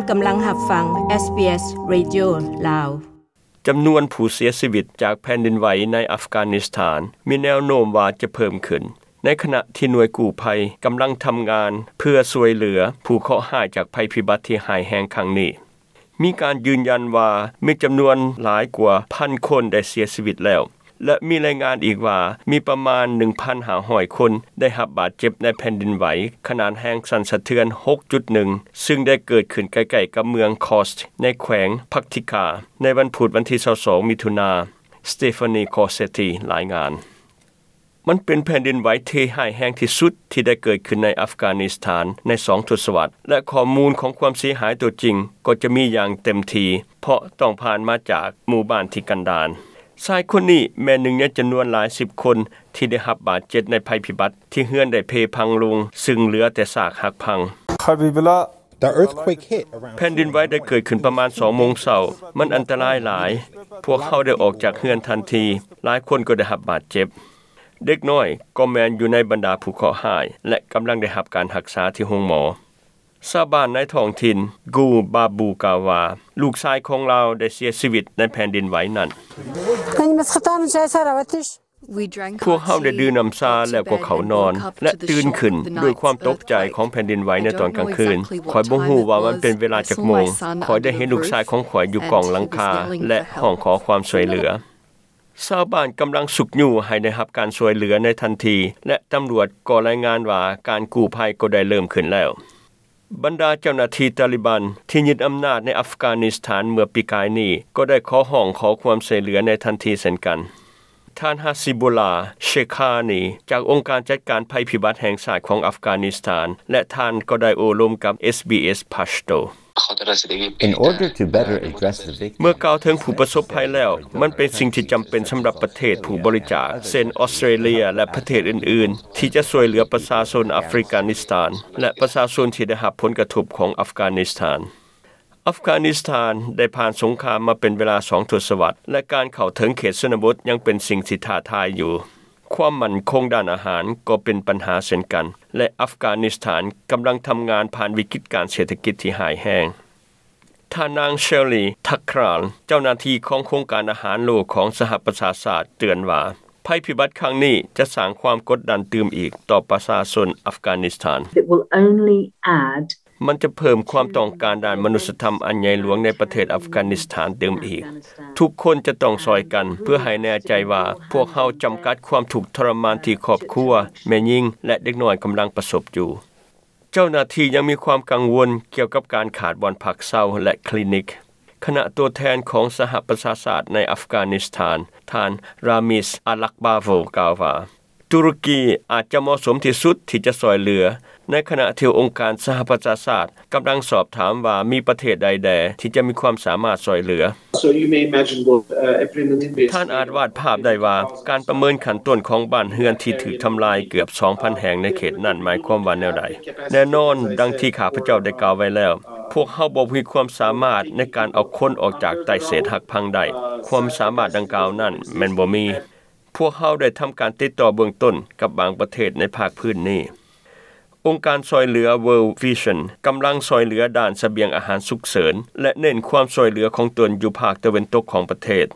ກຳລັງຮັບຟັງ ເອສບີເອສ ເຣດິໂອ ລາວ. ຈຳນວນຜູ້ເສຍຊີວິດຈາກແຜ່ນດິນໄຫວໃນອັຟການິສຖານ ມີແນວໂນ້ມວ່າຈະເພີ່ມຂຶ້ນ, ໃນຂະນະທີ່ໜ່ວຍກູ້ໄພກຳລັງທຳງານເພື່ອຊ່ວຍເຫຼືອຜູ້ເຄາະຮ້າຍຈາກໄພພິບັດທີ່ຮ້າຍແຮງຄັ້ງນີ້. ມີການຢືນຢັນວ່າມີຈຳນວນຫຼາຍກວ່າພັນຄົນໄດ້ເສຍຊີວິດແລ້ວ ແລະ ມີລາຍງານອີກວ່າມີປະມານໜຶ່ງພັນຫ້າຮ້ອຍຄົນໄດ້ຮັບບາດເຈັບໃນແຜ່ນດິນໄຫວຂະໜາດແຮງສັ່ນສະເທືອນຫົກຈຸດໜຶ່ງ ຊຶ່ງໄດ້ເກີດຂຶ້ນໃກ້ໆກັບເມືອງຄອສ ໃນແຂວງພັກທິກາ ໃນວັນພຸດວັນທີຊາວສອງ ມິຖຸນາ. ສະເຕຟານີ ຄອເຊຕີ ລາຍງານ. ມັນເປັນແຜ່ນດິນໄຫວທີ່ຮ້າຍແຮງທີ່ສຸດທີ່ໄດ້ເກີດຂຶ້ນໃນອັຟການິສຖານໃນສອງທົດສະວັດ ແລະ ຂໍ້ມູນຂອງຄວາມເສຍຫາຍຕົວຈິງກໍຈະມີຢ່າງເຕັມທີ່ ເພາະຕ້ອງຜ່ານມາຈາກໝູ່ບ້ານທີ່ກັນດານ. ຊາຍຄົນນີ້ແມ່ນໜຶ່ງໃນຈຳນວນຫຼາຍສິບຄົນທີ່ໄດ້ຮັບບາດເຈັບໃນໄພພິບັດທີ່ເຮືອນໄດ້ເພພັງລົງ, ຊຶ່ງເຫຼືອແຕ່ຊາກຫັກພັງ. The earthquake hit around ແຜ່ນດິນໄຫວໄດ້ເກີດຂຶ້ນປະມານສອງໂມງເຊົ້າ. ມັນອັນຕະລາຍຫຼາຍ. ພວກເຮົາໄດ້ອອກຈາກເຮືອນທັນທີ. ຫຼາຍຄົນກໍໄດ້ຮັບບາດເຈັບ. ເດັກນ້ອຍກໍແມ່ນຢູ່ໃນບັນດາຜູ້ເຄາະຮ້າຍ ແລະ ກຳລັງໄດ້ຮັບການຮັກສາທີ່ໂຮງໝໍ. ຊາວບ້ານໃນທ້ອງຖິ່ນ ກູ ບາບູ ກ່າວວ່າ ລູກຊາຍຂອງລາວໄດ້ເສຍຊີວິດໃນແຜ່ນດິນໄຫວນັ້ນ. Они нас хватали, начали сараватиш. ພວກເຮົາໄດ້ດື່ມນ້ຳຊາແລ້ວກໍເຂົ້ານອນ ແລະ ຕື່ນຂຶ້ນດ້ວຍຄວາມຕົກໃຈຂອງແຜ່ນດິນໄຫວໃນຕອນກາງຄືນ. ຂ້ອຍບໍ່ຮູ້ວ່າມັນເປັນເວລາຈັກໂມງ. ຂ້ອຍໄດ້ເຫັນລູກຊາຍຂອງຂ້ອຍຢູ່ກ້ອງຫຼັງຄາ ແລະ ຮ້ອງຂໍຄວາມຊ່ວຍເຫຼືອ. ຊາວບ້ານກຳລັງຊຸກຍູ້ໃຫ້ໄດ້ຮັບການຊ່ວຍເຫຼືອໃນທັນທີ ແລະ ຕຳຫຼວດກໍລາຍງານວ່າການກູ້ໄພກໍໄດ້ເລີ່ມຂຶ້ນແລ້ວ. ບັນດາເຈົ້າໜ້າທີ່ຕາລີບັນທີ່ຍຶດອຳນາດໃນອັຟການິສຖານເມື່ອປີກາຍນີ້ ກໍໄດ້ຂໍຮ້ອງຂໍຄວາມຊ່ວຍເຫຼືອໃນທັນທີເຊັ່ນກັນ. ທ່ານ ຮາຊິບູລາ ເຊຄານີ ຈາກອົງການຈັດການໄພພິບັດແຫ່ງຊາດຂອງອັຟການິສຖານ ແລະ ທ່ານກໍໄດ້ໂອ້ລົມກັບ ເອສບີເອສ ປາຊໂຕ. In order to better address the victims, ເມື່ອກ່າວເຖິງຜູ້ປະສົບໄພແລ້ວ, ມັນເປັນສິ່ງທີ່ຈຳເປັນສຳລັບປະເທດຜູ້ບໍລິຈາກ ເຊັ່ນ ອອສເຕຣເລຍ ແລະ ປະເທດອື່ນໆ ທີ່ຈະຊ່ວຍເຫຼືອປະຊາຊົນອັຟການິສຖານ ແລະ ປະຊາຊົນທີ່ໄດ້ຮັບຜົນກະທົບຂອງອັຟການິສຖານ. ອັຟການິສຖານໄດ້ຜ່ານສົງຄາມມາເປັນເວລາສອງທົດສະວັດ ແລະ ການເຂົ້າເຖິງເຂດຊົນນະບົດຍັງເປັນສິ່ງທີ່ທ້າທາຍຢູ່. ຄວາມໝັ້ນຄົງດ້ານອາຫານກໍເປັນບັນຫາເຊັ່ນກັນ ແລະ ອັຟການິສຖານກຳລັງທຳງານຜ່ານວິກິດການເສດຖະກິດທີ່ຮ້າຍແຮງ. ທ່ານນາງ ເຊລລີ ທັກຄຣານ ເຈົ້າໜ້າທີ່ຂອງໂຄງການອາຫານໂລກຂອງສະຫະປະຊາຊາດເຕືອນວ່າ ໄພພິບັດຄັ້ງນີ້ຈະສ້າງຄວາມກົດດັນຕື່ມອີກຕໍ່ປະຊາຊົນອັຟການິສຖານ. It will only add ມັນຈະເພີ່ມຄວາມຕ້ອງການດ້ານມະນຸດສະທຳອັນໃຫຍ່ຫຼວງໃນປະເທດອັຟການິສຖານຕື່ມອີກ. ທຸກຄົນຈະຕ້ອງຊ່ອຍກັນເພື່ອໃຫ້ແນ່ໃຈວ່າພວກເຮົາຈຳກັດຄວາມທຸກທໍລະມານທີ່ຄອບຄົວ, ແມ່ຍິງ ແລະ ເດັກນ້ອຍກຳລັງປະສົບຢູ່. ເຈົ້າໜ້າທີ່ຍັງມີຄວາມກັງວົນກ່ຽວກັບການຂາດບ່ອນພັກເຊົາ ແລະ ຄລີນິກ. ຄະນະຕົວແທນຂອງສະຫະປະຊາຊາດໃນອັຟການິສຖານ ທ່ານ ຣາມິສ ອາລັກບາໂວ ກ່າວວ່າ ຕຸຣກີອາດຈະເໝາະສົມທີ່ສຸດທີ່ຈະຊ່ອຍເຫຼືອ, ໃນຂະນະທີ່ອົງການສະຫະປະຊາຊາດກຳລັງສອບຖາມວ່າມີປະເທດໃດແດ່ທີ່ຈະມີຄວາມສາມາດຊ່ອຍເຫຼືອ. So you may imagine what, uh, everyone in this ທ່ານອາດວາດພາບໄດ້ວ່າ ການປະເມີນຂັ້ນຕົ້ນຂອງບ້ານເຮືອນທີ່ຖືກທຳລາຍເກືອບສອງພັນແຫ່ງໃນເຂດນັ້ນໝາຍຄວາມວ່າແນວໃດ. ແນ່ນອນ, ດັ່ງທີ່ຂ້າພະເຈົ້າໄດ້ກ່າວໄວ້ແລ້ວ, ພວກເຮົາບໍ່ມີຄວາມສາມາດໃນການເອົາຄົນອອກຈາກໃຕ້ເສດຫັກພັງໄດ້. ຄວາມສາມາດດັ່ງກ່າວນັ້ນແມ່ນບໍ່ມີ. ພວກເຮົາໄດ້ທຳການຕິດຕໍ່ເບື້ອງຕົ້ນກັບບາງປະເທດໃນພາກພື້ນນີ້. ອົງການຊ່ອຍເຫຼືອ World Vision ກຳລັງຊ່ອຍເຫຼືອດ້ານສະບຽງອາຫານສຸກເສີນ ແລະ ເນັ້ນຄວາມຊ່ອຍເຫຼືອຂອງຕົນຢູ່ພາກຕາເວັນຕົກຂອງປະເທດ.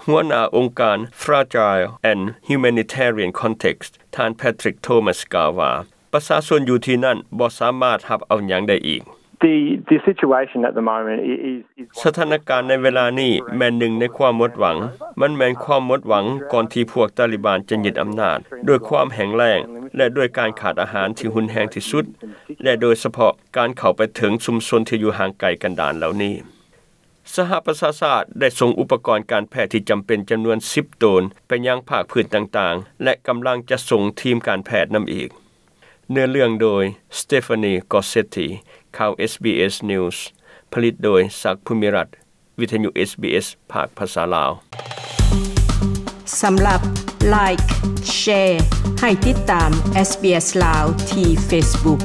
ຫົວໜ້າອົງການ Fragile and Humanitarian Context ທ່ານ Patrick Thomas ກ່າວວ່າ ປະຊາຊົນຢູ່ທີ່ນັ້ນບໍ່ສາມາດຮັບເອົາຫຍັງໄດ້ອີກ. The, the situation at the moment i-, is, is ສະຖານະການໃນເວລານີ້ແມ່ນໜຶ່ງໃນຄວາມໝົດຫວັງ. ມັນແມ່ນຄວາມໝົດຫວັງກ່ອນທີ່ພວກຕາລີບານຈະຍຶດອຳນາດ, ດ້ວຍຄວາມແຫ້ງແລ້ງ ແລະ ດ້ວຍການຂາດອາຫານທີ່ຮຸນແຮງທີ່ສຸດ ແລະ ໂດຍສະເພາະການເຂົ້າໄປເຖິງຊຸມຊົນທີ່ຢູ່ຫ່າງໄກກັນດານເຫຼົ່ານີ້. ສະຫະປະຊາຊາດໄດ້ສົ່ງອຸປະກອນການແພດທີ່ຈຳເປັນຈຳນວນສິບໂຕນໄປຍັງພາກພື້ນຕ່າງໆ ແລະ ກຳລັງຈະສົ່ງທີມການແພດນຳອີກ. ເນື້ອເລື່ອງໂດຍ Stephanie Gossetti ຂ່າວ ເອສບີເອສ News ຜະລິດໂດຍ ສັກ ພູມິລັດ ວິທະຍຸ ເອສບີເອສ ພາກພາສາລາວ. ສຳລັບ Like, Share ໃຫ້ຕິດຕາມ ເອສບີເອສ ລາວ ທີ່ Facebook.